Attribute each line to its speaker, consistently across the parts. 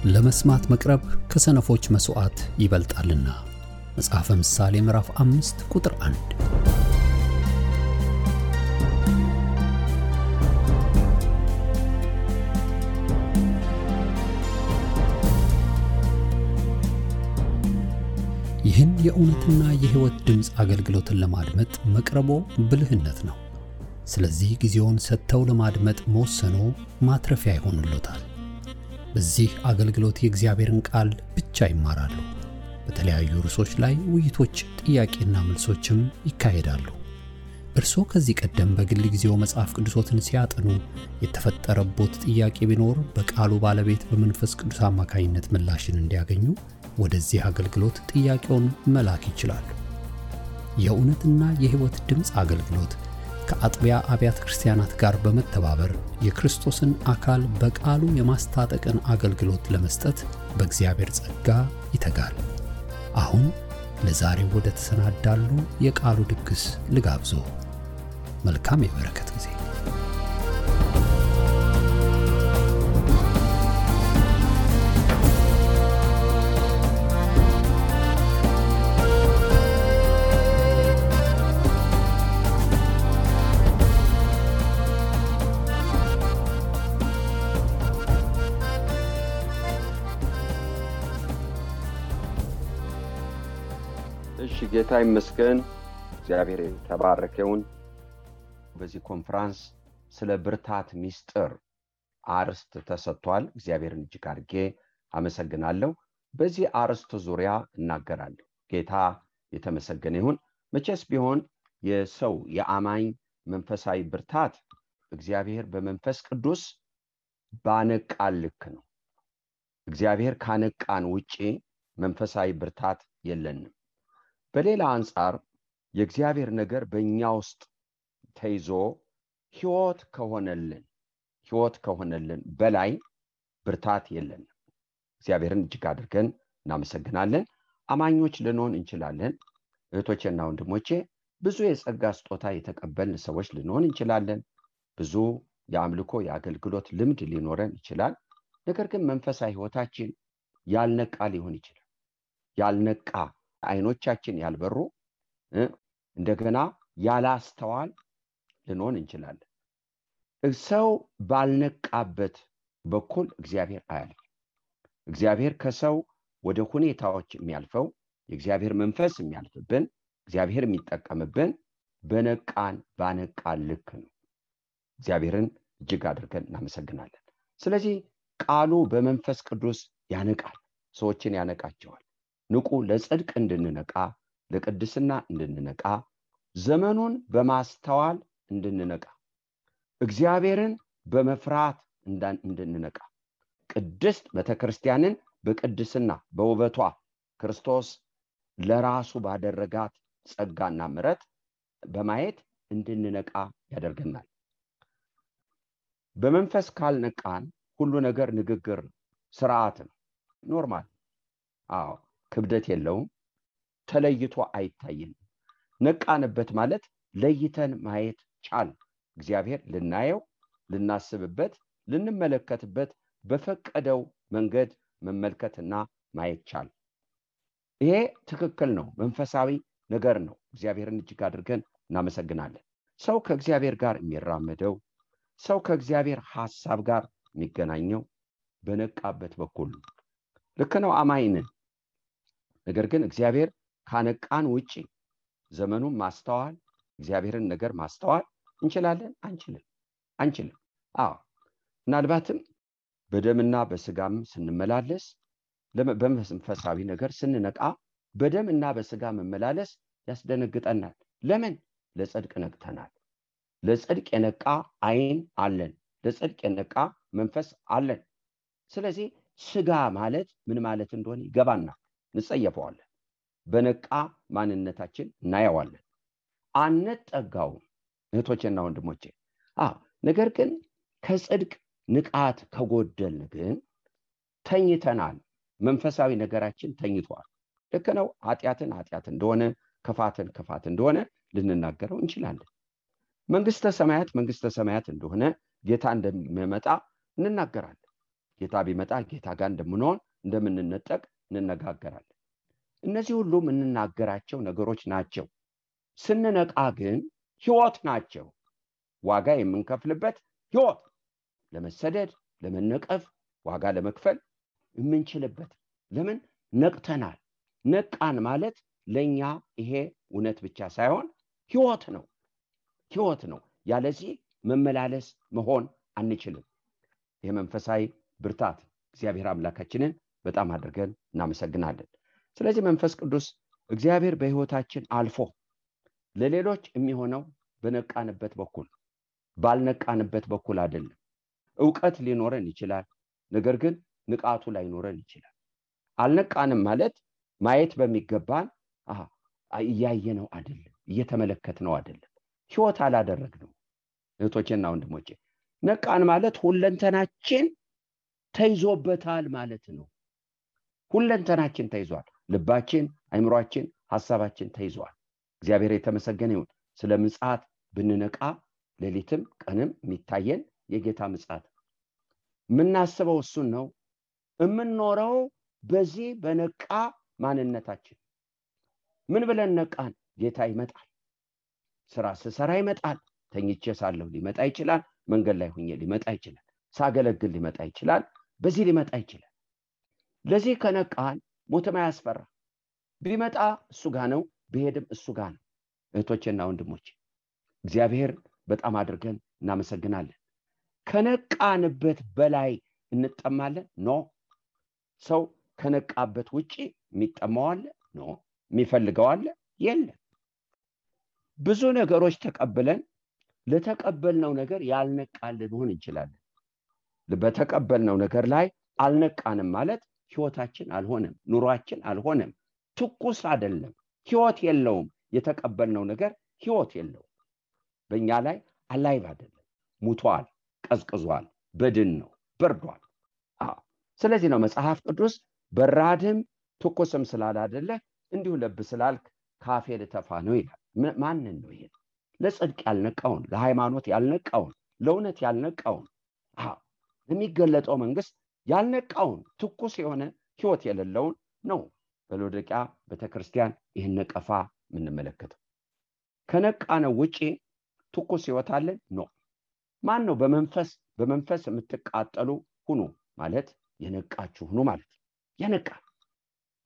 Speaker 1: ለመስማት መቅረብ ከሰነፎች መስዋዕት ይበልጣልና። መጽሐፈ ምሳሌ ምዕራፍ 5 ቁጥር 1። ይህን የእውነትና የሕይወት ድምጽ አገልግሎትን ለማድመጥ መቅረቦ ብልህነት ነው። ስለዚህ ጊዜውን ሰጥተው ለማድመጥ መወሰኖ ማትረፊያ ይሆንልዎታል። በዚህ አገልግሎት የእግዚአብሔርን ቃል ብቻ ይማራሉ። በተለያዩ ርዕሶች ላይ ውይይቶች፣ ጥያቄና መልሶችም ይካሄዳሉ። እርስዎ ከዚህ ቀደም በግል ጊዜው መጽሐፍ ቅዱሶትን ሲያጠኑ የተፈጠረቦት ጥያቄ ቢኖር በቃሉ ባለቤት በመንፈስ ቅዱስ አማካኝነት ምላሽን እንዲያገኙ ወደዚህ አገልግሎት ጥያቄውን መላክ ይችላሉ። የእውነትና የሕይወት ድምጽ አገልግሎት ከአጥቢያ አብያተ ክርስቲያናት ጋር በመተባበር የክርስቶስን አካል በቃሉ የማስታጠቅን አገልግሎት ለመስጠት በእግዚአብሔር ጸጋ ይተጋል። አሁን ለዛሬው ወደ ተሰናዳሉ የቃሉ ድግስ ልጋብዞ። መልካም የበረከት ጊዜ።
Speaker 2: ጌታ ይመስገን። እግዚአብሔር ተባረከውን። በዚህ ኮንፈረንስ ስለ ብርታት ሚስጥር አርስት ተሰጥቷል። እግዚአብሔርን እጅግ አድርጌ አመሰግናለሁ። በዚህ አርስት ዙሪያ እናገራለሁ። ጌታ የተመሰገነ ይሁን። መቼስ ቢሆን የሰው የአማኝ መንፈሳዊ ብርታት እግዚአብሔር በመንፈስ ቅዱስ ባነቃን ልክ ነው። እግዚአብሔር ካነቃን ውጪ መንፈሳዊ ብርታት የለንም። በሌላ አንጻር የእግዚአብሔር ነገር በእኛ ውስጥ ተይዞ ሕይወት ከሆነልን በላይ ብርታት የለንም። እግዚአብሔርን እጅግ አድርገን እናመሰግናለን። አማኞች ልንሆን እንችላለን። እህቶቼና ወንድሞቼ ብዙ የጸጋ ስጦታ የተቀበልን ሰዎች ልንሆን እንችላለን። ብዙ የአምልኮ የአገልግሎት ልምድ ሊኖረን ይችላል። ነገር ግን መንፈሳዊ ሕይወታችን ያልነቃ ሊሆን ይችላል። ያልነቃ አይኖቻችን ያልበሩ እንደገና ያላስተዋል ልንሆን እንችላለን። ሰው ባልነቃበት በኩል እግዚአብሔር አያልፍ። እግዚአብሔር ከሰው ወደ ሁኔታዎች የሚያልፈው የእግዚአብሔር መንፈስ የሚያልፍብን እግዚአብሔር የሚጠቀምብን ባነቃን ልክ ነው። እግዚአብሔርን እጅግ አድርገን እናመሰግናለን። ስለዚህ ቃሉ በመንፈስ ቅዱስ ያነቃል፣ ሰዎችን ያነቃቸዋል። ንቁ፣ ለጽድቅ እንድንነቃ፣ ለቅድስና እንድንነቃ፣ ዘመኑን በማስተዋል እንድንነቃ፣ እግዚአብሔርን በመፍራት እንድንነቃ፣ ቅድስት ቤተክርስቲያንን በቅድስና በውበቷ ክርስቶስ ለራሱ ባደረጋት ጸጋና ምሕረት በማየት እንድንነቃ ያደርገናል። በመንፈስ ካልነቃን ሁሉ ነገር ንግግር፣ ስርዓት ነው፣ ኖርማል። ክብደት የለውም፣ ተለይቶ አይታየንም። ነቃንበት ማለት ለይተን ማየት ቻል። እግዚአብሔር ልናየው፣ ልናስብበት፣ ልንመለከትበት በፈቀደው መንገድ መመልከትና ማየት ቻል። ይሄ ትክክል ነው፣ መንፈሳዊ ነገር ነው። እግዚአብሔርን እጅግ አድርገን እናመሰግናለን። ሰው ከእግዚአብሔር ጋር የሚራመደው፣ ሰው ከእግዚአብሔር ሐሳብ ጋር የሚገናኘው በነቃበት በኩል ልክ ነው። አማኝን ነገር ግን እግዚአብሔር ካነቃን ውጪ ዘመኑን ማስተዋል፣ እግዚአብሔርን ነገር ማስተዋል እንችላለን? አንችልም። ምናልባትም በደምና በስጋም ስንመላለስ፣ በመንፈሳዊ ነገር ስንነቃ በደምና በስጋ መመላለስ ያስደነግጠናል። ለምን? ለጽድቅ ነቅተናል። ለጽድቅ የነቃ አይን አለን፣ ለጽድቅ የነቃ መንፈስ አለን። ስለዚህ ስጋ ማለት ምን ማለት እንደሆነ ይገባናል፣ እንጸየፈዋለን። በነቃ ማንነታችን እናየዋለን፣ አንጠጋውም። እህቶቼና ወንድሞቼ ነገር ግን ከጽድቅ ንቃት ከጎደልን ግን ተኝተናል። መንፈሳዊ ነገራችን ተኝቷል። ልክ ነው። ኃጢአት እንደሆነ፣ ክፋት እንደሆነ ልንናገረው እንችላለን። መንግስተ ሰማያት እንደሆነ፣ ጌታ እንደሚመጣ እንናገራለን። ጌታ ቢመጣ ጌታ ጋር እንደምንሆን እንደምንነጠቅ እንነጋገራለን። እነዚህ ሁሉ የምንናገራቸው ነገሮች ናቸው። ስንነቃ ግን ሕይወት ናቸው። ዋጋ የምንከፍልበት ሕይወት፣ ለመሰደድ ለመነቀፍ ዋጋ ለመክፈል የምንችልበት። ለምን ነቅተናል? ነቃን ማለት ለኛ ይሄ እውነት ብቻ ሳይሆን ሕይወት ነው። ሕይወት ነው። ያለዚህ መመላለስ መሆን አንችልም። የመንፈሳዊ ብርታት እግዚአብሔር አምላካችንን በጣም አድርገን እናመሰግናለን። ስለዚህ መንፈስ ቅዱስ እግዚአብሔር በሕይወታችን አልፎ ለሌሎች የሚሆነው በነቃንበት በኩል ባልነቃንበት በኩል አይደለም። ዕውቀት ሊኖረን ይችላል፣ ነገር ግን ንቃቱ ላይኖረን ይችላል። አልነቃንም ማለት ማየት በሚገባን እያየነው አይደለም፣ እየተመለከትነው አይደለም፣ ሕይወት አላደረግነው። እህቶቼና ወንድሞቼ ነቃን ማለት ሁለንተናችን ተይዞበታል ማለት ነው። ሁለንተናችን ተይዟል። ልባችን፣ አእምሮአችን፣ ሐሳባችን ተይዟል። እግዚአብሔር የተመሰገነ ይሁን። ስለ ምጽአት ብንነቃ ሌሊትም ቀንም የሚታየን የጌታ ምጽአት የምናስበው እሱን ነው። የምንኖረው በዚህ በነቃ ማንነታችን። ምን ብለን ነቃን? ጌታ ይመጣል። ስራ ስሰራ ይመጣል። ተኝቼ ሳለሁ ሊመጣ ይችላል። መንገድ ላይ ሆኜ ሊመጣ ይችላል። ሳገለግል ሊመጣ ይችላል። በዚህ ሊመጣ ይችላል። ለዚህ ከነቃን ሞትም አያስፈራ። ቢመጣ እሱ ጋር ነው፣ ቢሄድም እሱ ጋር ነው። እህቶቼና ወንድሞቼ እግዚአብሔር በጣም አድርገን እናመሰግናለን። ከነቃንበት በላይ እንጠማለን? ኖ። ሰው ከነቃበት ውጪ የሚጠማው አለ? ኖ። የሚፈልገው አለ? የለም። ብዙ ነገሮች ተቀብለን ለተቀበልነው ነገር ያልነቃን ልንሆን እንችላለን። በተቀበልነው ነገር ላይ አልነቃንም ማለት ሕይወታችን አልሆነም፣ ኑሯችን አልሆነም፣ ትኩስ አይደለም፣ ሕይወት የለውም። የተቀበልነው ነገር ሕይወት የለውም። በእኛ ላይ አላይቭ አይደለም፣ ሙቷል፣ ቀዝቅዟል፣ በድን ነው፣ በርዷል። ስለዚህ ነው መጽሐፍ ቅዱስ በራድም ትኩስም ስላላደለ እንዲሁ ለብ ስላልክ ካፌ ልተፋ ነው ይላል። ማንን ነው ይሄ? ለጽድቅ ያልነቃውን፣ ለሃይማኖት ያልነቃውን፣ ለእውነት ያልነቃውን፣ የሚገለጠው መንግስት ያልነቃውን፣ ትኩስ የሆነ ሕይወት የሌለውን ነው በሎዶቅያ ቤተክርስቲያን ይህን ነቀፋ የምንመለከተው። ከነቃነው ውጪ ትኩስ ሕይወት አለን? ኖ። ማን ነው በመንፈስ የምትቃጠሉ ሁኑ ማለት የነቃችሁ ሁኑ ማለት የነቃ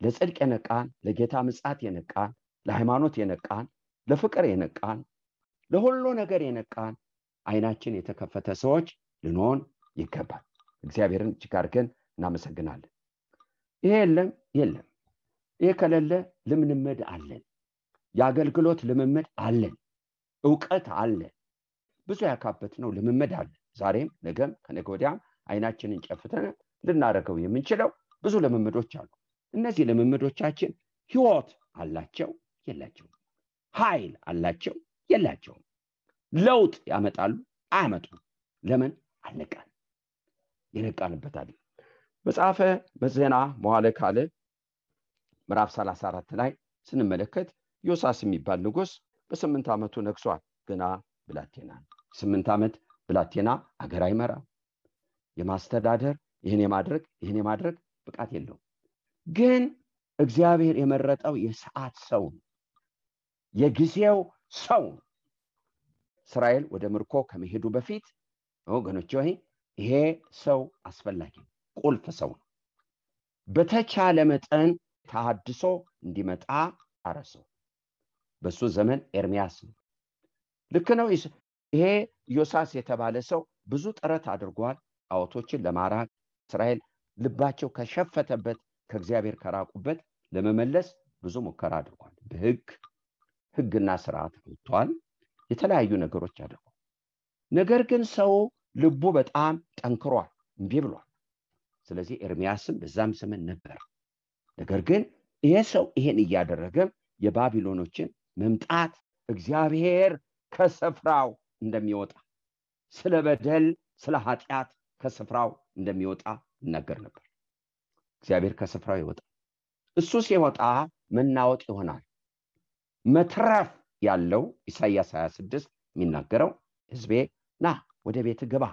Speaker 2: ለጽድቅ የነቃን፣ ለጌታ ምጽአት የነቃን፣ ለሃይማኖት የነቃን፣ ለፍቅር የነቃን፣ ለሁሉ ነገር የነቃን አይናችን የተከፈተ ሰዎች ልንሆን ይገባል። እግዚአብሔርን እጅግ አድርገን እናመሰግናለን። ይሄ የለም። ይሄ ከሌለ ልምምድ አለን፣ የአገልግሎት ልምምድ አለን፣ ዕውቀት አለን፣ ብዙ ያካበትነው ልምምድ አለን። ዛሬም ነገም ከነገ ወዲያም አይናችንን ጨፍተን ልናደርገው የምንችለው ብዙ ልምምዶች አሉ። እነዚህ ልምምዶቻችን ሕይወት አላቸው? የላቸውም። ኃይል አላቸው? የላቸውም። ለውጥ ያመጣሉ? አያመጡም። ለምን? አልነቃን። የነቃንበት አይደል። መጽሐፈ ዜና መዋዕል ካልዕ ምዕራፍ 34 ላይ ስንመለከት ዮሳስ የሚባል ንጉሥ በ8 ዓመቱ ነግሷል። ገና ብላቴና፣ 8 ዓመት ብላቴና አገር አይመራ፣ የማስተዳደር ይህን የማድረግ ብቃት የለውም። ግን እግዚአብሔር የመረጠው የሰዓት ሰው፣ የጊዜው ሰው። እስራኤል ወደ ምርኮ ከመሄዱ በፊት ወገኖች ሆይ ይሄ ሰው አስፈላጊ ቁልፍ ሰው ነው። በተቻለ መጠን ተሐድሶ እንዲመጣ አረሰው። በሱ ዘመን ኤርሚያስ ነው። ልክ ነው። ይሄ ዮሳስ የተባለ ሰው ብዙ ጥረት አድርጓል ጣዖቶችን ለማራቅ። እስራኤል ልባቸው ከሸፈተበት ከእግዚአብሔር ከራቁበት ለመመለስ ብዙ ሙከራ አድርጓል። በሕግና ስርዓት ወጥቷል። የተለያዩ ነገሮች አድርጓል። ነገር ግን ሰው ልቡ በጣም ጠንክሯል፣ እምቢ ብሏል። ስለዚህ ኤርሚያስም በዛም ዘመን ነበር። ነገር ግን ይሄ ሰው ይሄን እያደረገ የባቢሎኖችን መምጣት እግዚአብሔር ከስፍራው እንደሚወጣ፣ ስለ በደል ስለ ኃጢአት ከስፍራው እንደሚወጣ ይናገር ነበር። እግዚአብሔር ከስፍራው ይወጣል። እሱ ሲወጣ መናወጥ ይሆናል። መትረፍ ያለው ኢሳይያስ 26 የሚናገረው ሕዝቤ ና ወደ ቤት ግባ፣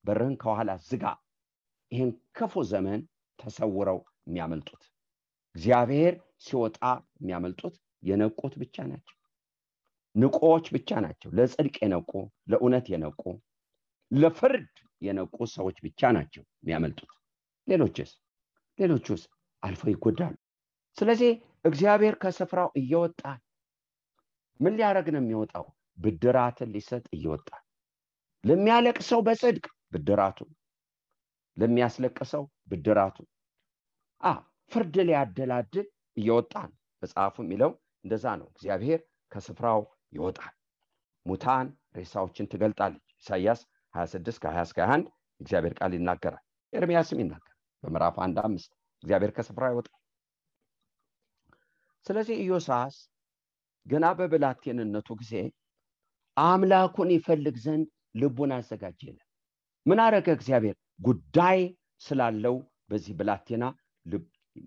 Speaker 2: በርህን ከኋላ ዝጋ፣ ይህን ክፉ ዘመን ተሰውረው የሚያመልጡት። እግዚአብሔር ሲወጣ የሚያመልጡት የነቁት ብቻ ናቸው። ንቆዎች ብቻ ናቸው። ለጽድቅ የነቁ፣ ለእውነት የነቁ፣ ለፍርድ የነቁ ሰዎች ብቻ ናቸው የሚያመልጡት። ሌሎቹስ አልፈው ይጎዳሉ። ስለዚህ እግዚአብሔር ከስፍራው እየወጣ ምን ሊያደርግ ነው የሚወጣው? ብድራትን ሊሰጥ እየወጣ፣ ለሚያለቅሰው በጽድቅ ብድራቱ፣ ለሚያስለቅሰው ብድራቱ፣ ፍርድ ሊያደላድል እየወጣ ነው። መጽሐፉ የሚለው እንደዛ ነው። እግዚአብሔር ከስፍራው ይወጣል፣ ሙታን ሬሳዎችን ትገልጣለች። ኢሳይያስ 26 ከ20 እስከ 21 እግዚአብሔር ቃል ይናገራል። ኤርምያስም ይናገራል በምዕራፍ 1:5 እግዚአብሔር ከስፍራው ይወጣል። ስለዚህ ኢዮሳስ ገና በብላቴንነቱ ጊዜ አምላኩን ይፈልግ ዘንድ ልቡን አዘጋጀ። ምን አረገ? እግዚአብሔር ጉዳይ ስላለው በዚህ ብላቴና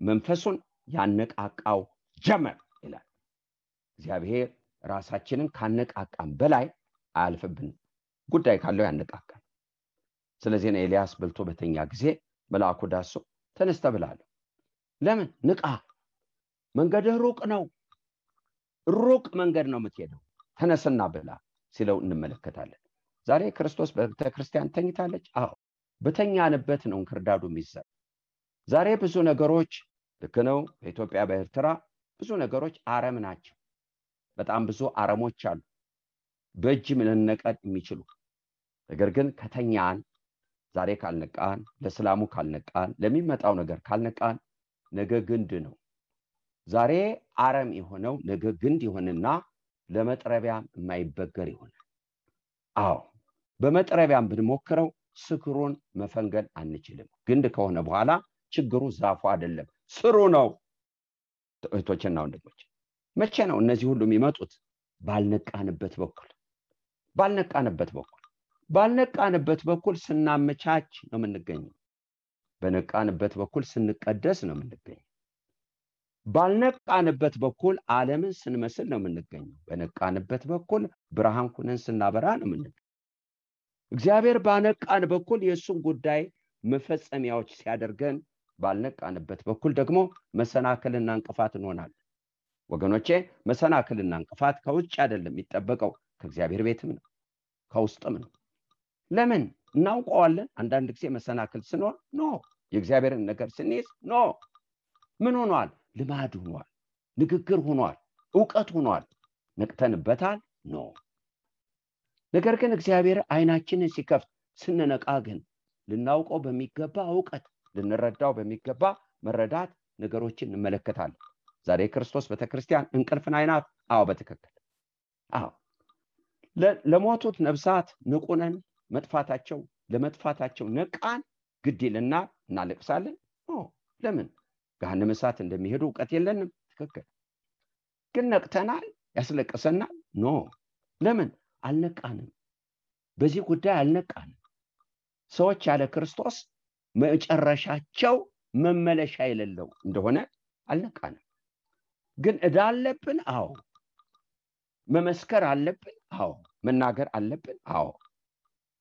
Speaker 2: መንፈሱን ያነቃቃው ጀመር ይላል። እግዚአብሔር ራሳችንን ካነቃቃም በላይ አያልፍብን፣ ጉዳይ ካለው ያነቃቃል። ስለዚህ ነው ኤልያስ በልቶ በተኛ ጊዜ መልአኩ ዳሶ ተነስተ ብላለሁ። ለምን? ንቃ፣ መንገድህ ሩቅ ነው፣ ሩቅ መንገድ ነው የምትሄደው፣ ተነስና ብላ ሲለው እንመለከታለን። ዛሬ ክርስቶስ በቤተክርስቲያን ተኝታለች። በተኛንበት ነው እንክርዳዱ የሚዘራ። ዛሬ ብዙ ነገሮች ልክ ነው። በኢትዮጵያ በኤርትራ ብዙ ነገሮች አረም ናቸው። በጣም ብዙ አረሞች አሉ በእጅ መነቀል የሚችሉ። ነገር ግን ከተኛን፣ ዛሬ ካልነቃን፣ ለሰላሙ ካልነቃን፣ ለሚመጣው ነገር ካልነቃን ነገ ግንድ ነው። ዛሬ አረም የሆነው ነገ ግንድ ይሆንና ለመጥረቢያም የማይበገር ይሆናል። በመጥረቢያም ብንሞክረው ስክሩን መፈንገል አንችልም። ግንድ ከሆነ በኋላ ችግሩ ዛፉ አይደለም ስሩ ነው። እህቶችና ወንድሞች መቼ ነው እነዚህ ሁሉ የሚመጡት? ባልነቃንበት በኩል ስናመቻች ነው የምንገኘው። በነቃንበት በኩል ስንቀደስ ነው የምንገኘው። ባልነቃንበት በኩል ዓለምን ስንመስል ነው የምንገኘው። በነቃንበት በኩል ብርሃን ሆነን ስናበራ ነው የምንገኘው። እግዚአብሔር ባነቃን በኩል የእሱን ጉዳይ መፈጸሚያዎች ሲያደርገን፣ ባልነቃንበት በኩል ደግሞ መሰናክልና እንቅፋት እንሆናለን። ወገኖቼ መሰናክልና እንቅፋት ከውጭ አይደለም የሚጠበቀው፣ ከእግዚአብሔር ቤትም ነው፣ ከውስጥም ነው። ለምን? እናውቀዋለን። አንዳንድ ጊዜ መሰናክል ስኖር የእግዚአብሔርን ነገር ስንይዝ ምን ሆኗል? ልማድ ሆኗል፣ ንግግር ሆኗል፣ ዕውቀት ሆኗል። ነቅተንበታል? ነገር ግን እግዚአብሔር አይናችንን ሲከፍት ስንነቃ ግን ልናውቀው በሚገባ ዕውቀት፣ ልንረዳው በሚገባ መረዳት ነገሮችን እንመለከታለን። ዛሬ ክርስቶስ ቤተክርስቲያን እንቅልፍን አይናት። በትክክል ለሞቱት ነፍሳት ንቁነን፣ ለመጥፋታቸው ነቃን፣ ግድ ይልና እናለቅሳለን። ለምን? ገሃነመ እሳት እንደሚሄዱ ዕውቀት የለንም። ትክክል። ግን ነቅተናል፣ ያስለቅሰናል። ለምን? አልነቃንም። በዚህ ጉዳይ አልነቃንም። ሰዎች ያለ ክርስቶስ መጨረሻቸው መመለሻ የሌለው እንደሆነ አልነቃንም። ግን ዕዳ አለብን። መመስከር አለብን። መናገር አለብን።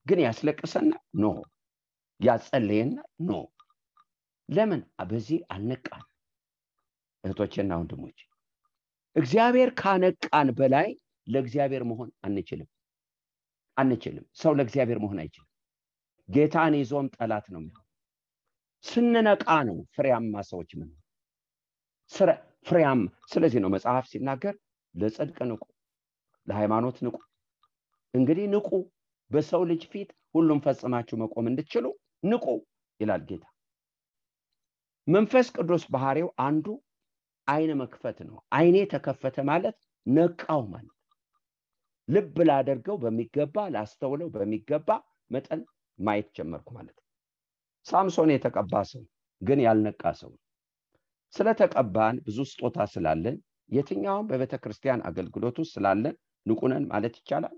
Speaker 2: ግን ያስለቅሰናል። ያጸልየናል። ለምን? በዚህ አልነቃን። እህቶቼና ወንድሞች እግዚአብሔር ካነቃን በላይ ለእግዚአብሔር መሆን አንችልም። ሰው ለእግዚአብሔር መሆን አይችልም። ጌታን ይዞም ጠላት ነው የሚሆነው። ስንነቃ ነው ፍሬያማ ሰዎች ምን ፍሬያማ። ስለዚህ ነው መጽሐፍ ሲናገር ለጽድቅ ንቁ፣ ለሃይማኖት ንቁ። እንግዲህ ንቁ፣ በሰው ልጅ ፊት ሁሉም ፈጽማችሁ መቆም እንድትችሉ ንቁ ይላል ጌታ። መንፈስ ቅዱስ ባህሪው አንዱ አይነ መክፈት ነው። አይኔ ተከፈተ ማለት ነቃው ማለት፣ ልብ ላደርገው በሚገባ ላስተውለው በሚገባ መጠን ማየት ጀመርኩ ማለት። ሳምሶን የተቀባ ሰው ግን ያልነቃ ሰው። ስለተቀባን ብዙ ስጦታ ስላለን የትኛውም በቤተክርስቲያን አገልግሎት ውስጥ ስላለን ንቁነን ማለት ይቻላል?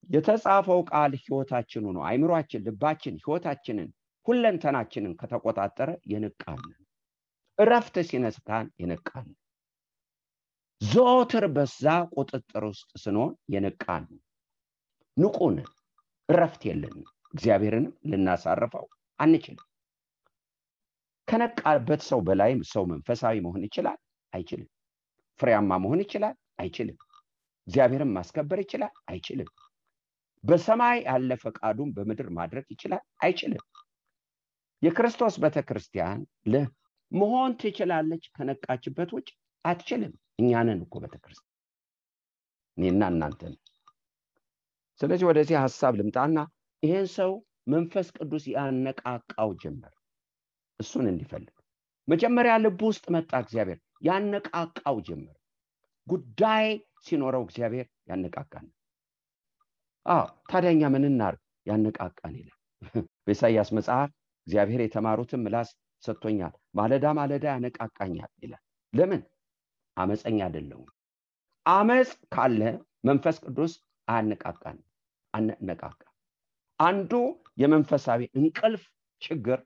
Speaker 2: የተጻፈው ቃል ሕይወታችን ሆኖ አይምሮአችን፣ ልባችን፣ ሕይወታችንን፣ ሁለንተናችንን ከተቆጣጠረ የነቃን፣ እረፍት ሲነሳን የነቃን፣ ዘወትር በዛ ቁጥጥር ውስጥ ስንሆን የነቃን፣ ንቁን፣ እረፍት የለንም። እግዚአብሔርን ልናሳርፈው አንችልም። ከነቃበት ሰው በላይ ሰው መንፈሳዊ መሆን ይችላል? አይችልም። ፍሬያማ መሆን ይችላል? አይችልም። እግዚአብሔርን ማስከበር ይችላል? አይችልም። በሰማይ ያለ ፈቃዱን በምድር ማድረግ ይችላል? አይችልም። የክርስቶስ ቤተክርስቲያን መሆን ትችላለች፣ ከነቃችበት ውጭ አትችልም። እኛንን እኮ ቤተክርስቲያን እኔና እናንተን። ስለዚህ ወደዚህ ሐሳብ ልምጣና ይሄን ሰው መንፈስ ቅዱስ ያነቃቃው ጀመር እሱን እንዲፈልግ። መጀመሪያ ልብ ውስጥ መጣ እግዚአብሔር፣ ያነቃቃው ጀመር። ጉዳይ ሲኖረው እግዚአብሔር ያነቃቃል። ታዲያኛ ምን እናርግ? ያነቃቃን ይላል በኢሳይያስ መጽሐፍ። እግዚአብሔር የተማሩትን ምላስ ሰጥቶኛል፣ ማለዳ ማለዳ ያነቃቃኛል ይላል። ለምን? አመፀኛ አይደለሁም። አመፅ ካለ መንፈስ ቅዱስ አያነቃቃን። አነቃቃ። አንዱ የመንፈሳዊ እንቅልፍ ችግር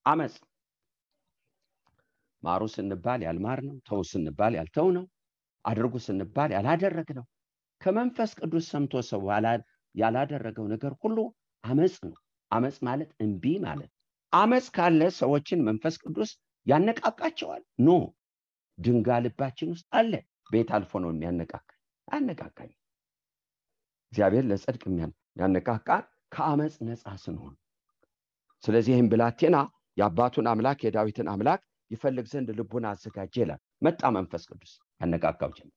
Speaker 2: አመፅ። ማሩ ስንባል ያልማር ነው፣ ተው ስንባል ያልተው ነው፣ አድርጉ ስንባል ያላደረግ ነው። ከመንፈስ ቅዱስ ሰምቶ ሰው ያላደረገው ነገር ሁሉ አመፅ ነው። አመፅ ማለት እንቢ ማለት። አመፅ ካለ ሰዎችን መንፈስ ቅዱስ ያነቃቃቸዋል? ኖ፣ ድንጋይ ልባችን ውስጥ አለ። ቤት አልፎ ነው የሚያነቃቃኝ? አነቃቃኝ። እግዚአብሔር ለጽድቅ ያነቃቃ ከአመፅ ነፃ ስንሆን። ስለዚህ ይህም ብላቴና የአባቱን አምላክ የዳዊትን አምላክ ይፈልግ ዘንድ ልቡን አዘጋጀ ይላል። መጣ መንፈስ ቅዱስ ያነቃቃው ጀመር።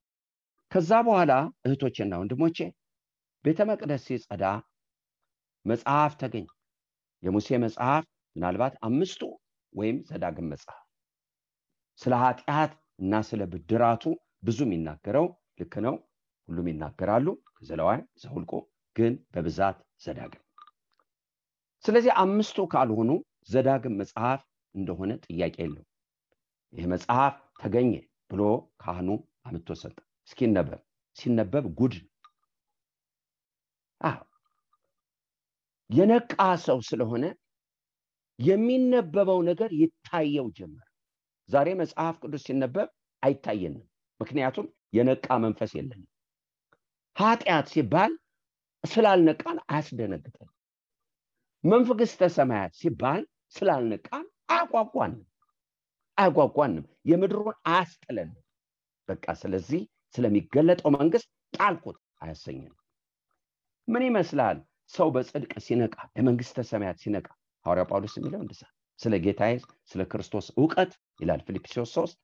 Speaker 2: ከዛ በኋላ እህቶቼና ወንድሞቼ ቤተ መቅደስ ሲጸዳ መጽሐፍ ተገኘ። የሙሴ መጽሐፍ፣ ምናልባት 5ቱ ወይም ዘዳግም መጽሐፍ። ስለ ኃጢአት እና ስለ ብድራቱ ብዙ የሚናገረው ልክ ነው፣ ሁሉም ይናገራሉ። ዘሌዋውያን፣ ዘኍልቍ፣ ግን በብዛት ዘዳግም። ስለዚህ 5ቱ ካልሆኑ ዘዳግም መጽሐፍ እንደሆነ ጥያቄ የለው። ይህ መጽሐፍ ተገኘ ብሎ ካህኑ አምጥቶ ሰጠ። ሲነበብ ጉድ። የነቃ ሰው ስለሆነ የሚነበበው ነገር ይታየው ጀመር። ዛሬ መጽሐፍ ቅዱስ ሲነበብ አይታየንም፣ ምክንያቱም የነቃ መንፈስ የለንም። ኃጢአት ሲባል ስላልነቃን አያስደነግጠን። መንግሥተ ሰማያት ሲባል ስላልነቃን አያጓጓንም፣ የምድሩን አያስጥለንም። በቃ ስለዚህ ስለሚገለጠው መንግስት ጣልኩት አያሰኘንም። ምን ይመስላል ሰው በጽድቅ ሲነቃ፣ ለመንግሥተ ሰማያት ሲነቃ? ሐዋርያ ጳውሎስ የሚለው እንደዛ ስለ ጌታዬ ስለ ክርስቶስ ዕውቀት ይላል ፊልጵስዩስ 3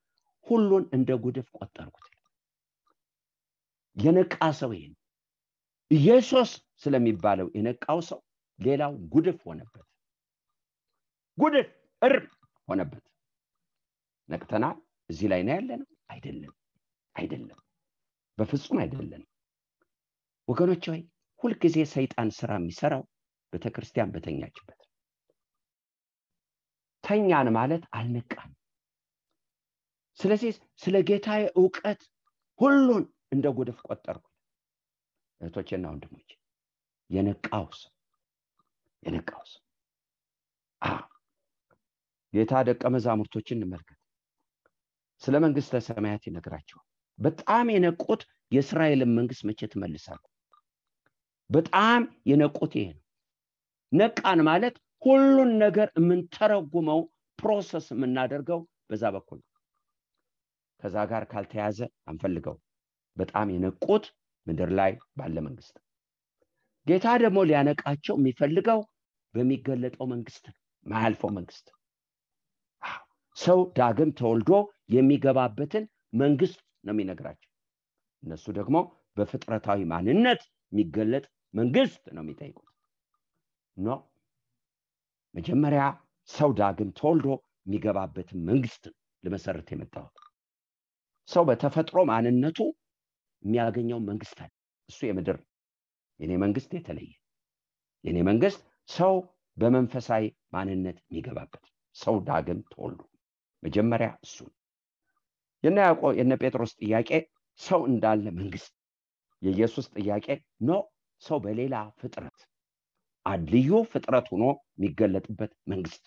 Speaker 2: ሁሉን እንደ ጉድፍ ቆጠርኩት። የነቃ ሰው ይሄ ኢየሱስ ስለሚባለው የነቃው ሰው ሌላው ጉድፍ ሆነበት። ጉድፍ ሆነበት። ነቅተናል። እዚህ ላይ ነው ያለነው? አይደለም፣ በፍጹም አይደለም። ወገኖች ሆይ ሁልጊዜ ሰይጣን ስራ የሚሰራው ቤተክርስቲያን በተኛችበት። ተኛን ማለት አልነቃም። ስለዚህ ስለ ጌታዬ ዕውቀት ሁሉን እንደ ጉድፍ ቆጠርኩ። እህቶቼና ወንድሞቼ የነቃው ሰው ጌታ ደቀ መዛሙርቶችን እንመልከት። ስለ መንግሥተ ሰማያት ይነግራቸዋል። በጣም የነቁት የእስራኤልን መንግስት መቼ ትመልሳለህ? በጣም የነቁት ይሄ ነው። ነቃን ማለት ሁሉን ነገር የምንተረጉመው ፕሮሰስ የምናደርገው በዛ በኩል ነው። ከዛ ጋር ካልተያዘ አንፈልገው። በጣም የነቁት ምድር ላይ ባለ መንግስት። ጌታ ደግሞ ሊያነቃቸው የሚፈልገው በሚገለጠው መንግስት ነው፣ ማያልፈው መንግስት። ሰው ዳግም ተወልዶ የሚገባበትን መንግስት ነው የሚነግራቸው። እነሱ ደግሞ በፍጥረታዊ ማንነት የሚገለጥ መንግስት ነው የሚጠይቁት። መጀመሪያ ሰው ዳግም ተወልዶ የሚገባበትን መንግስት ለመሰረት የመጣው። ሰው በተፈጥሮ ማንነቱ የሚያገኘው መንግስት አለ። እሱ የምድር። የኔ መንግስት የተለየ። የኔ መንግስት ሰው በመንፈሳዊ ማንነት የሚገባበት። ሰው ዳግም ተወልዶ መጀመሪያ እሱ። የነ ጴጥሮስ ጥያቄ ሰው እንዳለ መንግስት። የኢየሱስ ጥያቄ ሰው በሌላ ፍጥረት ልዩ ፍጥረት ሆኖ የሚገለጥበት መንግስት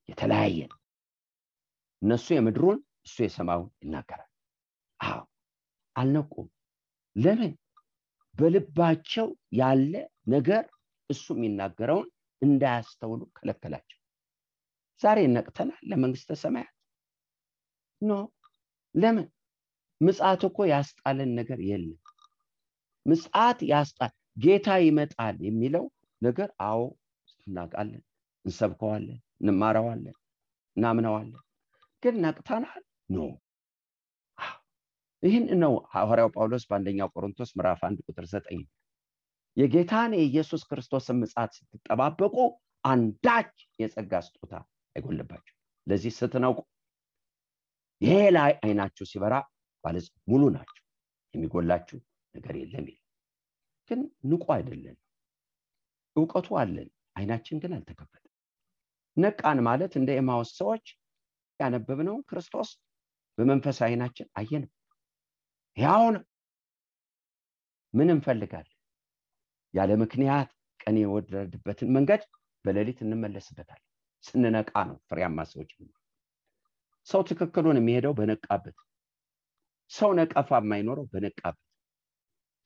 Speaker 2: የተለያየ። እነሱ የምድሩን እሱ የሰማዩን ይናገራል። አልነቁም። ለምን? በልባቸው ያለ ነገር እሱ የሚናገረውን እንዳያስተውሉ ከለከላቸው። ዛሬ ነቅተናል ለመንግስተ ሰማያት? ኖ። ለምን? ምጽአት እኮ ያስጣለን ነገር የለም። ምጽአት ያስጣል፣ ጌታ ይመጣል የሚለው ነገር አዎ እናውቃለን፣ እንሰብከዋለን፣ እንማረዋለን፣ እናምነዋለን። ግን ነቅተናል? ኖ። ይህን ነው ሐዋርያው ጳውሎስ በአንደኛው ቆሮንቶስ ምዕራፍ 1 ቁጥር 9 የጌታን የኢየሱስ ክርስቶስን ምጽአት ስትጠባበቁ አንዳች የጸጋ ስጦታ አይጎልባችሁ። ለዚህ ስትነቁ ይሄ ላይ አይናችሁ ሲበራ ባለጽ ሙሉ ናችሁ፣ የሚጎላችሁ ነገር የለም ይላል። ግን ንቁ አይደለም። ዕውቀቱ አለን፣ አይናችን ግን አልተከፈተም። ነቃን ማለት እንደ ኤማውስ ሰዎች ያነበብነው ክርስቶስ በመንፈስ አይናችን አየነው። ያው ነው። ምን እንፈልጋለን? ያለ ምክንያት ቀን የወረደበትን መንገድ በሌሊት እንመለስበታለን። ስንነቃ ነው ፍሬያማ ሰዎች። ሰው ትክክሉን የሚሄደው በነቃበት፣ ሰው ነቀፋ የማይኖረው በነቃበት፣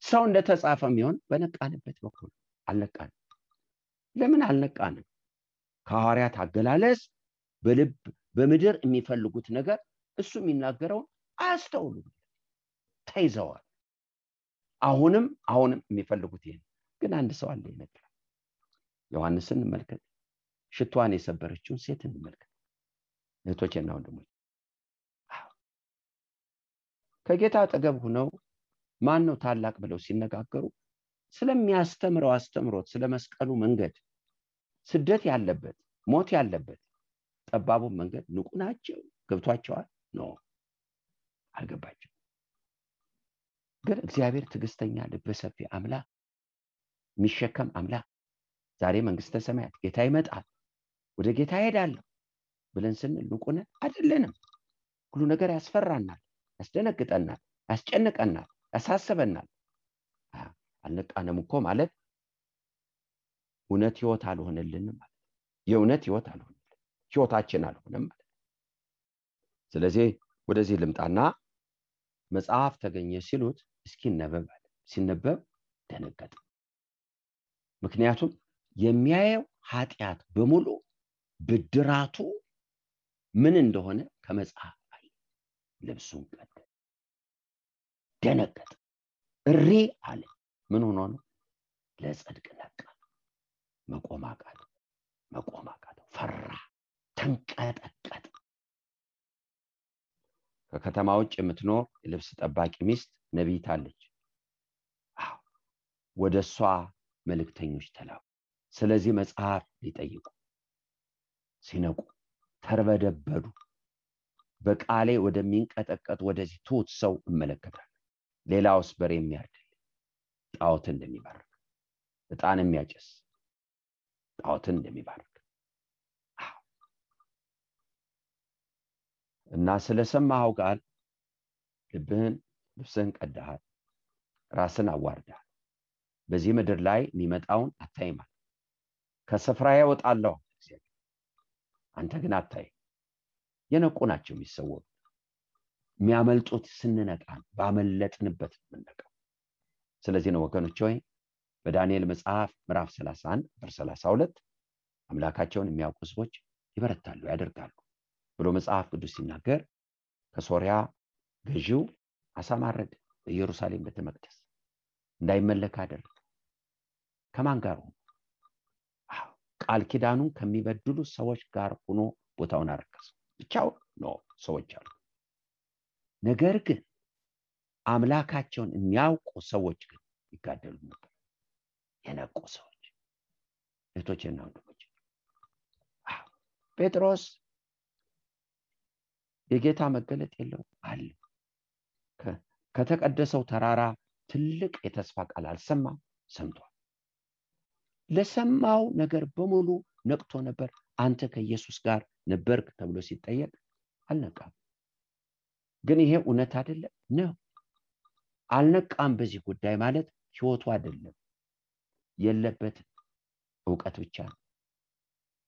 Speaker 2: ሰው እንደተጻፈ የሚሆን በነቃንበት በኩል። አልነቃንም። ለምን አልነቃንም? ከሐዋርያት አገላለጽ በልብ በምድር የሚፈልጉት ነገር እሱ የሚናገረውን አያስተውሉም፣ ተይዘዋል። አሁንም የሚፈልጉት ይሄን። ግን አንድ ሰው አለ ይነግራል። ዮሐንስን እንመልከት፣ ሽቷን የሰበረችውን ሴት እንመልከት። እህቶቼና ወንድሞቼ ከጌታ አጠገብ ሆነው ማን ነው ታላቅ ብለው ሲነጋገሩ ስለሚያስተምረው አስተምሮት፣ ስለመስቀሉ መንገድ፣ ስደት ያለበት ሞት ያለበት ጠባቡ መንገድ ንቁ ናቸው? ገብቷቸዋል? ኖ፣ አልገባቸው። ግን እግዚአብሔር ትዕግስተኛ ልበ ሰፊ አምላክ፣ የሚሸከም አምላክ፣ ዛሬ መንግስተ ሰማያት ጌታ ይመጣል ወደ ጌታ ሄዳለሁ ብለን ስንል ንቁ ነን? አይደለንም። ሁሉ ነገር ያስፈራናል፣ ያስደነግጠናል፣ ያስጨንቀናል፣ ያሳስበናል። አልነቃንም እኮ ማለት እውነት ህይወት አልሆነልንም ማለት፣ የእውነት ህይወት አልሆነልንም፣ ህይወታችን አልሆነም ማለት። ስለዚህ ወደዚህ ልምጣና መጽሐፍ ተገኘ ሲሉት እስኪ ነበብ አለ። ሲነበብ ደነገጠ። ምክንያቱም የሚያየው ኃጢአት በሙሉ ብድራቱ ምን እንደሆነ ከመጽሐፍ አይ። ልብሱን ቀደ፣ ደነገጠ፣ እሪ አለ። ምን ሆኖ ነው? ለጽድቅ ነቃ። መቆም አቃተው፣ ፈራ፣ ተንቀጠቀጠ። ከከተማ ውጭ የምትኖር የልብስ ጠባቂ ሚስት ነቢይት አለች። ወደሷ መልእክተኞች ተላኩ። ስለዚህ መጽሐፍ ሊጠይቁ ሲነቁ ተርበደበዱ። በቃሌ ወደሚንቀጠቀጥ ወደዚህ ትሁት ሰው እመለከታለሁ። ሌላውስ በሬ የሚያርድል ጣዖትን እንደሚባርክ፣ ዕጣን የሚያጨስ ጣዖትን እንደሚባርክ እና ስለሰማኸው ቃል ልብስህን ቀደሃል፣ ራስን አዋርደሃል። በዚህ ምድር ላይ የሚመጣውን አታይም። ከስፍራዬ እወጣለሁ እግዚአብሔር፣ አንተ ግን አታይም። የነቁ ናቸው የሚሰወሩ። የሚያመልጡት ስንነቃ፣ ባመለጥንበት የምንነቃው። ስለዚህ ነው ወገኖች ሆይ በዳንኤል መጽሐፍ ምዕራፍ 31 ቁጥር 32 አምላካቸውን የሚያውቁ ሕዝቦች ይበረታሉ፣ ያደርጋሉ ብሎ መጽሐፍ ቅዱስ ሲናገር ከሶሪያ ገዢው አሳማረደ፣ በኢየሩሳሌም ቤተ መቅደስ እንዳይመለክ አደረገ። ከማን ጋር ሆኖ? ቃል ኪዳኑን ከሚበድሉ ሰዎች ጋር ሆኖ ቦታውን አረከሰ። ብቻው ነው ሰዎች አሉ። ነገር ግን አምላካቸውን የሚያውቁ ሰዎች ግን ይጋደሉ ነበር። የነቁ ሰዎች፣ እህቶቼና ወንድሞቼ። ጴጥሮስ የጌታ መገለጥ የለው አለ። ከተቀደሰው ተራራ ትልቅ የተስፋ ቃል አልሰማም፣ ሰምቷል። ለሰማው ነገር በሙሉ ነቅቶ ነበር። አንተ ከኢየሱስ ጋር ነበርክ ተብሎ ሲጠየቅ አልነቃም። ግን ይሄ እውነት አይደለም ነው። አልነቃም በዚህ ጉዳይ ማለት ህይወቱ አይደለም፣ የለበትም፣ ዕውቀት ብቻ ነው።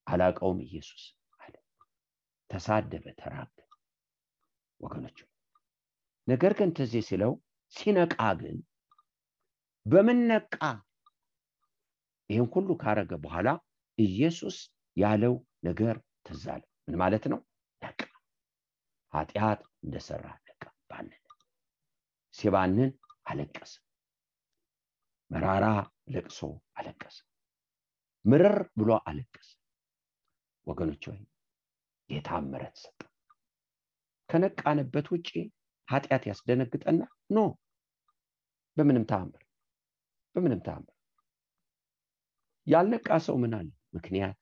Speaker 2: አላቀውም ኢየሱስ አለ፣ ተሳደበ፣ ተራገ ወገኖች። ነገር ግን ትዝ ሲለው ሲነቃ ግን በምን ነቃ? ይህን ሁሉ ካረገ በኋላ ኢየሱስ ያለው ነገር ትዝ አለ። ምን ማለት ነው? ነቃ። ኃጢአት እንደሰራ ነቃ። ባንን ሲባንን አለቀሰ። መራራ ለቅሶ አለቀሰ። ምርር ብሎ አለቀሰ። ወገኖች ሆይ ጌታ ምሕረት ሰጠ። ከነቃንበት ውጪ ኃጢአት ያስደነግጠና ኖ በምንም ተአምር ያልነቃ ሰው ምን አለ? ምክንያት።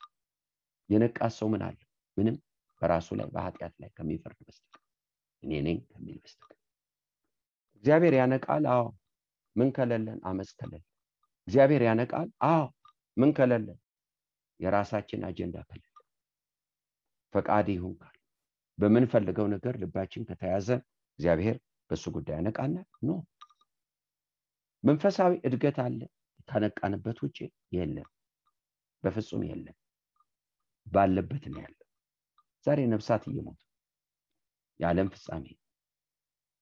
Speaker 2: የነቃ ሰው ምን አለ? ምንም። በራሱ ላይ በኃጢአት ላይ ከሚፈርድ በስተቀር እኔ ነኝ ከሚል በስተቀር። እግዚአብሔር ያነቃል። አዎ። ምን ከለለን? አመፅ ከለለን። እግዚአብሔር ያነቃል። አዎ። ምን ከለለን? የራሳችን አጀንዳ ከለለን። ፈቃድ ይሁን ካል በምንፈልገው ነገር ልባችን ከተያዘ እግዚአብሔር በሱ ጉዳይ ያነቃና ኖ። መንፈሳዊ እድገት አለ ከነቃንበት ውጪ የለም። በፍጹም የለም። ባለበት ነው ያለው። ዛሬ ነፍሳት እየሞቱ የዓለም ፍጻሜ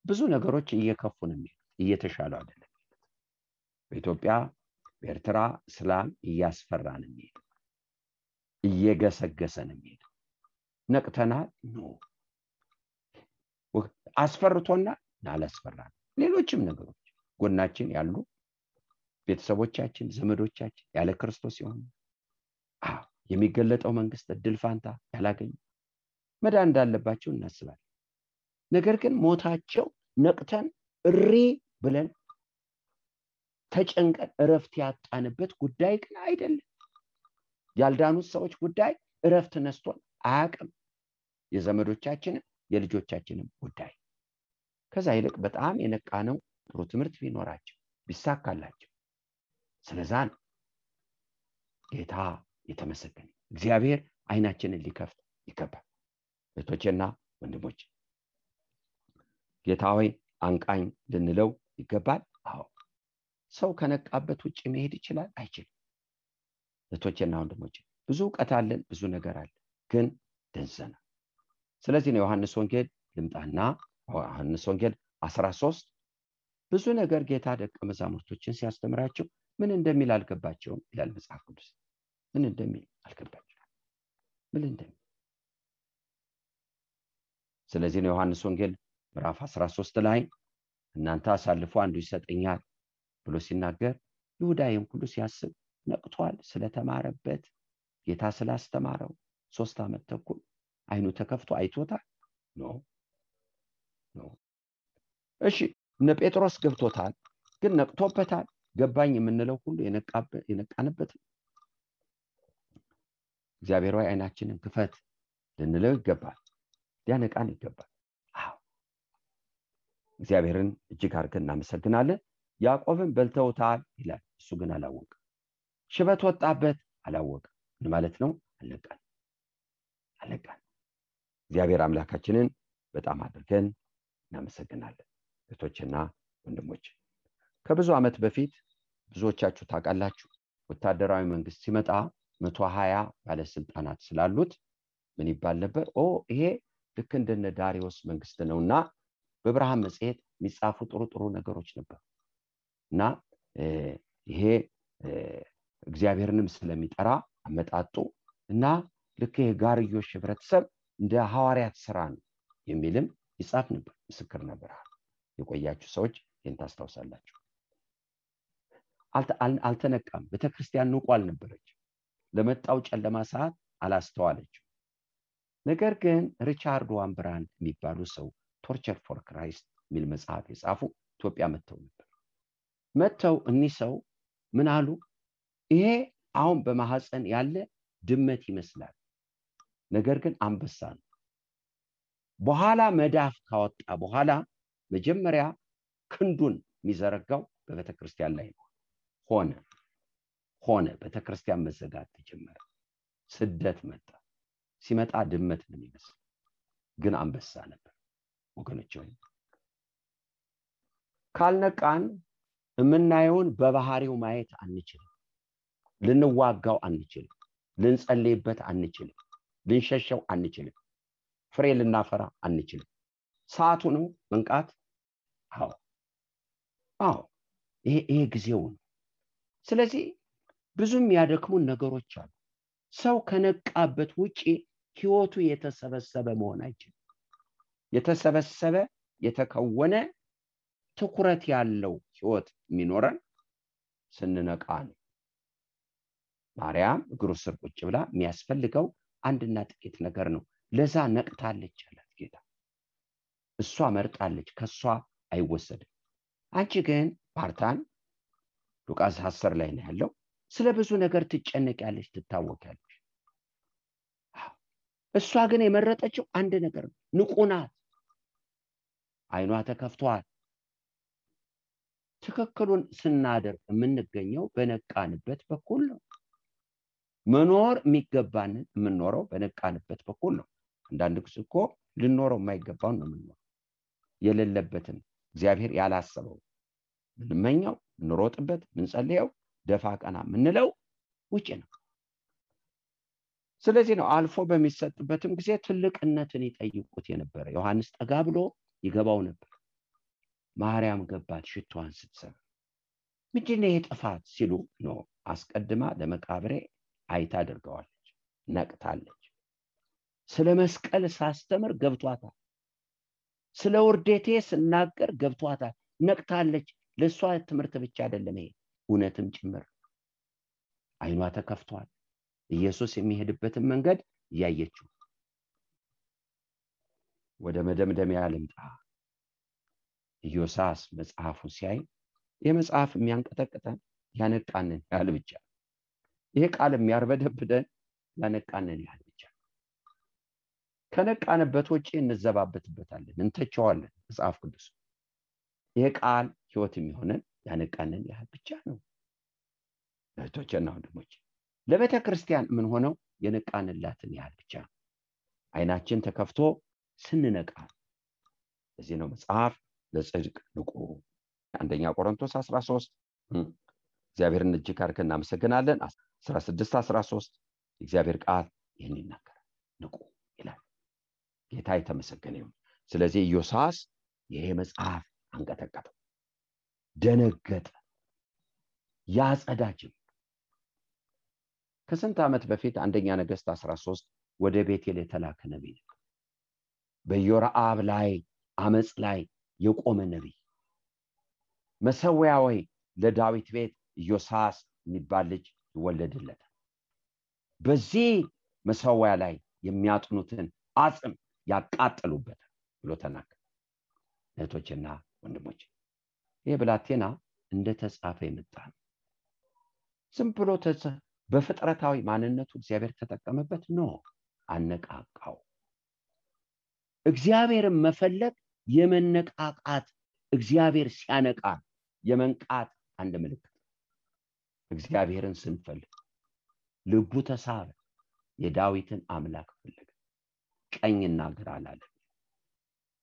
Speaker 2: ብዙ ነገሮች እየከፉ ነው የሚሄዱት፣ እየተሻሉ አይደለም። በኢትዮጵያ በኤርትራ እስላም እያስፈራ ነው የሚሄደው፣ እየገሰገሰ ነው የሚሄደው። ነቅተናል? ኖ። አስፈርቶናል? አላስፈራንም። ሌሎችም ነገሮች ጎናችን ያሉ ቤተሰቦቻችን፣ ዘመዶቻችን ያለ ክርስቶስ ይሆኑ የሚገለጠው መንግስት እድል ፋንታ ያላገኙ መዳን እንዳለባቸው እናስባለን። ነገር ግን ሞታቸው ነቅተን እሪ ብለን ተጨንቀን እረፍት ያጣንበት ጉዳይ ግን አይደለም። ያልዳኑት ሰዎች ጉዳይ እረፍት ነስቶን አያውቅም። የዘመዶቻችንም የልጆቻችንም ጉዳይ። ከዛ ይልቅ በጣም የነቃ ነው ጥሩ ትምህርት ቢኖራቸው ቢሳካላቸው። ስለዛ ጌታ የተመሰገነ። እግዚአብሔር አይናችንን ሊከፍት ይገባል። እህቶቼና ወንድሞች ጌታ ሆይ አንቃኝ ልንለው ይገባል። አዎ። ሰው ከነቃበት ውጪ መሄድ ይችላል? አይችልም። እህቶቼና ወንድሞች ብዙ ዕውቀት አለን፣ ብዙ ነገር አለ፣ ግን ደንዘና። ስለዚህ ነው ዮሐንስ ወንጌል ልምጣና ዮሐንስ ወንጌል 13 ብዙ ነገር ጌታ ደቀ መዛሙርቶችን ሲያስተምራቸው ምን እንደሚል አልገባቸውም ይላል መጽሐፍ ቅዱስ። ምን እንደሚል አልገባቸውም። ምን እንደሚል። ስለዚህ ነው ዮሐንስ ወንጌል ምዕራፍ 13 ላይ እናንተ አሳልፎ አንዱ ይሰጠኛል ብሎ ሲናገር ይሁዳይም ሁሉ ሲያስብ ነቅቷል። ስለተማረበት ጌታ ስላስተማረው 3 ዓመት ተኩል አይኑ ተከፍቶ አይቶታል? ኖ። እሺ እነ ጴጥሮስ ገብቶታል፣ ግን ነቅቶበታል? ገባኝ የምንለው ሁሉ የነቃንበት። እግዚአብሔር ሆይ አይናችንን ክፈት ልንለው ይገባል፣ ሊያነቃን ይገባል። አዎ። እግዚአብሔርን እጅግ አድርገን እናመሰግናለን። ያዕቆብን በልተውታል ይላል፣ እሱ ግን አላወቀም። ሽበት ወጣበት፣ አላወቀም። ምን ማለት ነው? አልነቃን። እግዚአብሔር አምላካችንን በጣም አድርገን እናመሰግናለን። እህቶችና ወንድሞች ከብዙ ዓመት በፊት ብዙዎቻችሁ ታውቃላችሁ፣ ወታደራዊ መንግስት ሲመጣ 120 ባለስልጣናት ስላሉት ምን ይባል ነበር? ይሄ ልክ እንደነ ዳሪዮስ መንግስት ነውና በብርሃን መጽሔት የሚጻፉ ጥሩ ነገሮች ነበር። እና ይሄ እግዚአብሔርንም ስለሚጠራ አመጣጡ እና ልክ የጋርዮሽ ህብረተሰብ እንደ ሐዋርያት ስራ ነው የሚልም ይጻፍ ነበር። ምስክር ነበር። የቆያችሁ ሰዎች ይህን ታስታውሳላችሁ። አልተነቃም። ቤተክርስቲያን ንቁ አልነበረች። ለመጣው ጨለማ ሰዓት አላስተዋለችው። ነገር ግን ሪቻርድ ዋንብራንድ የሚባሉ ሰው ቶርቸር ፎር ክራይስት የሚል መጽሐፍ የጻፉ ኢትዮጵያ መጥተው እኒህ ሰው ምን አሉ? ይሄ አሁን በማህፀን ያለ ድመት ይመስላል፣ ነገር ግን አንበሳ ነው። በኋላ መዳፍ ካወጣ በኋላ መጀመሪያ ክንዱን የሚዘረጋው በቤተክርስቲያን ላይ ነው። ሆነ ቤተክርስቲያን መዘጋት ተጀመረ። ስደት መጣ። ሲመጣ ድመት ነው የሚመስል፣ ግን አንበሳ ነበር። ወገኖች ሆይ ካልነቃን የምናየውን በባህሪው ማየት አንችልም። ልንዋጋው አንችልም። ልንጸልይበት አንችልም። ልንሸሸው አንችልም። ፍሬ ልናፈራ አንችልም። ሰዓቱ ነው መንቃት። አዎ ይሄ ጊዜው ነው። ስለዚህ ብዙም ያደክሙን ነገሮች አሉ። ሰው ከነቃበት ውጪ ህይወቱ የተሰበሰበ መሆን አይችልም። የተሰበሰበ የተከወነ ትኩረት ያለው ህይወት የሚኖረን ስንነቃ ነው። ማርያም እግሩ ስር ቁጭ ብላ የሚያስፈልገው አንድና ጥቂት ነገር ነው። ለዛ ነቅታለች አላት ጌታ። እሷ መርጣለች፣ ከሷ አይወሰድም። አንቺ ግን ፓርታን ሉቃስ 10 ላይ ነው ያለው። ስለ ብዙ ነገር ትጨነቂያለሽ፣ ትታወቂያለሽ። እሷ ግን የመረጠችው አንድ ነገር ነው። ንቁ ናት። አይኗ ተከፍቷል። ትክክሉን ስናደርግ የምንገኘው በነቃንበት በኩል ነው። መኖር የሚገባንን የምንኖረው በነቃንበት በኩል ነው። አንዳንድ ጊዜ እኮ ልንኖረው የማይገባውን ነው የምንኖረው። የሌለበትን እግዚአብሔር ያላሰበው ምንመኛው፣ እንሮጥበት፣ ምንጸልየው፣ ደፋ ቀና ምንለው ውጪ ነው። ስለዚህ ነው አልፎ በሚሰጥበትም ጊዜ ትልቅነትን ይጠይቁት የነበረ። ዮሐንስ ጠጋ ብሎ ይገባው ነበር። ማርያም ገባት ሽቷን ስትሰራ። ምንድነው የጥፋት ሲሉ ነው አስቀድማ ለመቃብሬ አይታ አድርገዋለች፣ ነቅታለች። ስለ መስቀል ሳስተምር ገብቷታል። ስለ ውርደቴ ስናገር ገብቷታል፣ ነቅታለች። ለሷ ትምህርት ብቻ አይደለም፣ ይሄ እውነትም ጭምር። አይኗ ተከፍቷል። ኢየሱስ የሚሄድበትን መንገድ ያየችው። ወደ መደምደሚያ ልምጣ። ኢዮሳስ መጽሐፉን ሲያይ የመጽሐፍ የሚያንቀጠቅጠን ያነቃንን ያህል ብቻ፣ ይሄ ቃል የሚያርበደብደን ያነቃንን ያህል ብቻ። ከነቃንበት ውጪ እንዘባበትበታለን፣ እንተቸዋለን መጽሐፍ ቅዱስ። ይሄ ቃል ህይወት የሚሆነን ያነቃንን ያህል ብቻ ነው። እህቶቼና ወንድሞቼ፣ ለቤተ ክርስቲያን ምን ሆነው የነቃንላትን ያህል ብቻ ነው። አይናችን ተከፍቶ ስንነቃ። እዚህ ነው መጽሐፍ ለጽድቅ ንቁ። አንደኛ ቆሮንቶስ 13 እግዚአብሔርን እጅግ አድርገን እናመሰግናለን። 16-13 እግዚአብሔር ቃል ይህን ይናገራል፣ ንቁ ይላል። ጌታ የተመሰገነ ይሁን። ስለዚህ ኢዮሳስ ይሄ መጽሐፍ አንቀጠቀጠው፣ ደነገጠ፣ ያጸዳጅም። ከስንት ዓመት በፊት አንደኛ ነገሥት 13 ወደ ቤቴል የተላከ ነቢይ ነው። በኢዮራብ ላይ አመጽ ላይ የቆመ ነቢይ። መሰዊያዊ ለዳዊት ቤት ኢዮሳስ የሚባል ልጅ ይወለድለታል። በዚህ መሰዊያ ላይ የሚያጥኑትን አጽም ያቃጠሉበታል ብሎ ተናገረ። እህቶችና ወንድሞች፣ ይህ ብላቴና እንደተጻፈ የመጣ ነው። ዝም ብሎ በፍጥረታዊ ማንነቱ እግዚአብሔር ተጠቀመበት ነው፣ አነቃቃው። እግዚአብሔርን መፈለግ የመነቃቃት፣ እግዚአብሔር ሲያነቃ የመንቃት አንድ ምልክት። እግዚአብሔርን ስንፈልግ ልቡ ተሳበ፣ የዳዊትን አምላክ ፈለገ፣ ቀኝና ግራ አላለ።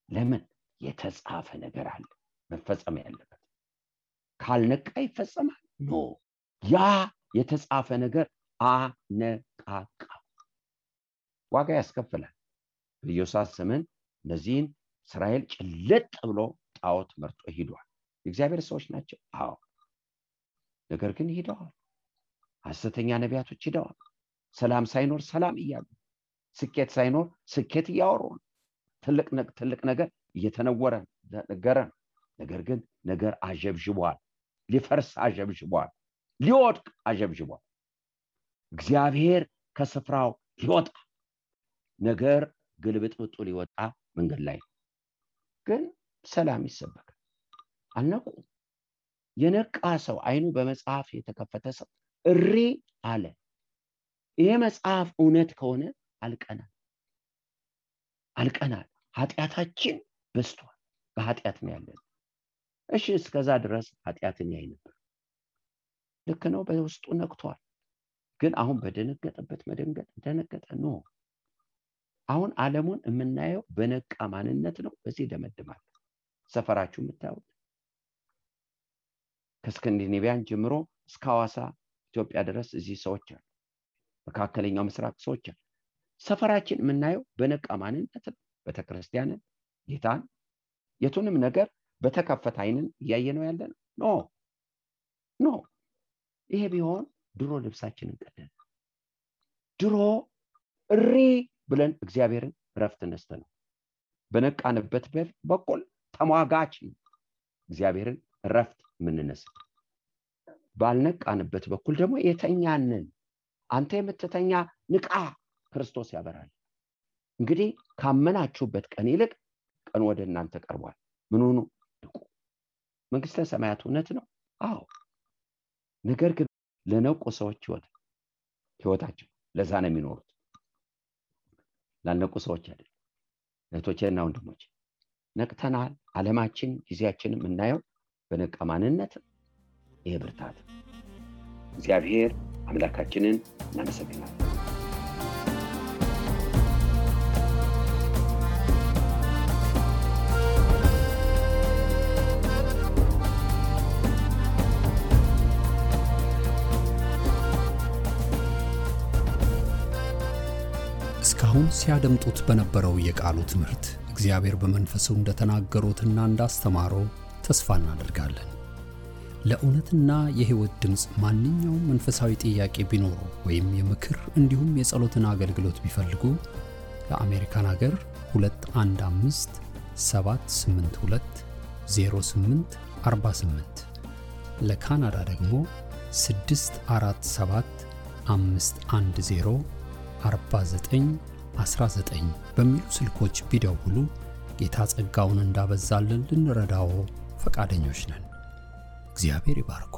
Speaker 2: ለምን? የተጻፈ ነገር አለ መፈጸም ያለበት። ካልነቃ ይፈጸማል? ኖ፣ ያ የተጻፈ ነገር አነቃቃ፣ ዋጋ ያስከፍላል። በኢዮሳስ ዘመን እነዚህን እስራኤል ጭልጥ ብሎ ጣዖት መርጦ ሄዷል። የእግዚአብሔር ሰዎች ናቸው፣ አዎ። ነገር ግን ሄደዋል። ሐሰተኛ ነቢያቶች ሄደዋል። ሰላም ሳይኖር ሰላም እያሉ፣ ስኬት ሳይኖር ስኬት እያወሩ፣ ትልቅ ነገር እየተነወረ ነገረ። ነገር ግን ነገር አጀብጅቧል፣ ሊፈርስ አጀብጅቧል፣ ሊወድቅ አጀብጅቧል። እግዚአብሔር ከስፍራው ሊወጣ፣ ነገር ግልብጥብጡ ሊወጣ መንገድ ላይ ግን ሰላም ይሰበካል። አልነቁ። የነቃ ሰው፣ አይኑ በመጽሐፍ የተከፈተ ሰው እሪ አለ። ይሄ መጽሐፍ እውነት ከሆነ አልቀናል። ኃጢአታችን በስቷል፣ በኃጢአት ነው ያለን። እሺ፣ እስከዛ ድረስ ኃጢአትን ያይ ነበር። ልክ ነው፣ በውስጡ ነቅቷል። ግን አሁን በደነገጠበት መደንገጥ ደነገጠ ነው። አሁን ዓለሙን የምናየው በነቃ ማንነት ነው። በዚህ ደመድማል። ሰፈራችሁ የምታዩት ከስካንዲኔቪያን ጀምሮ እስከ ሐዋሳ ኢትዮጵያ ድረስ እዚህ ሰዎች አሉ። መካከለኛው ምስራቅ ሰዎች አሉ። ሰፈራችን የምናየው በነቃ ማንነት ነው። ቤተክርስቲያንን፣ ጌታን፣ የቱንም ነገር በተከፈተ አይንን እያየነው ያለነው ኖ። ይሄ ቢሆን ድሮ ልብሳችንን ቀደን ድሮ እሪ ብለን እግዚአብሔርን ረፍት ነስተን በነቃንበት በኩል ተሟጋች እግዚአብሔርን ረፍት ምንነስ ባልነቃንበት በኩል ደግሞ የተኛንን አንተ የምትተኛ ንቃ ክርስቶስ ያበራል። እንግዲህ ካመናችሁበት ቀን ይልቅ ቀን ወደ እናንተ ቀርቧል። ምን ሆኑ ንቁ። መንግስተ ሰማያት እውነት ነው። አዎ ነገር ግን ለነቁ ሰዎች ህይወታቸው ለዛ ነው የሚኖሩት። ላልነቁ ሰዎች አይደል። እህቶቼና ወንድሞቼ ነቅተናል። ዓለማችን ጊዜያችንን የምናየው በነቃ ማንነት ይሄ ብርታት እግዚአብሔር አምላካችንን እናመሰግናለን።
Speaker 1: እስካሁን ሲያደምጡት በነበረው የቃሉ ትምህርት እግዚአብሔር በመንፈሱ እንደተናገሩትና እንዳስተማረው ተስፋ እናደርጋለን። ለእውነትና የሕይወት ድምጽ ማንኛውም መንፈሳዊ ጥያቄ ቢኖሩ ወይም የምክር እንዲሁም የጸሎትን አገልግሎት ቢፈልጉ ለአሜሪካን ሀገር 215 782 0848 ለካናዳ ደግሞ 647 510 4919 በሚሉ ስልኮች ቢደውሉ ጌታ ጸጋውን እንዳበዛልን ልንረዳው ፈቃደኞች ነን። እግዚአብሔር ይባርክ።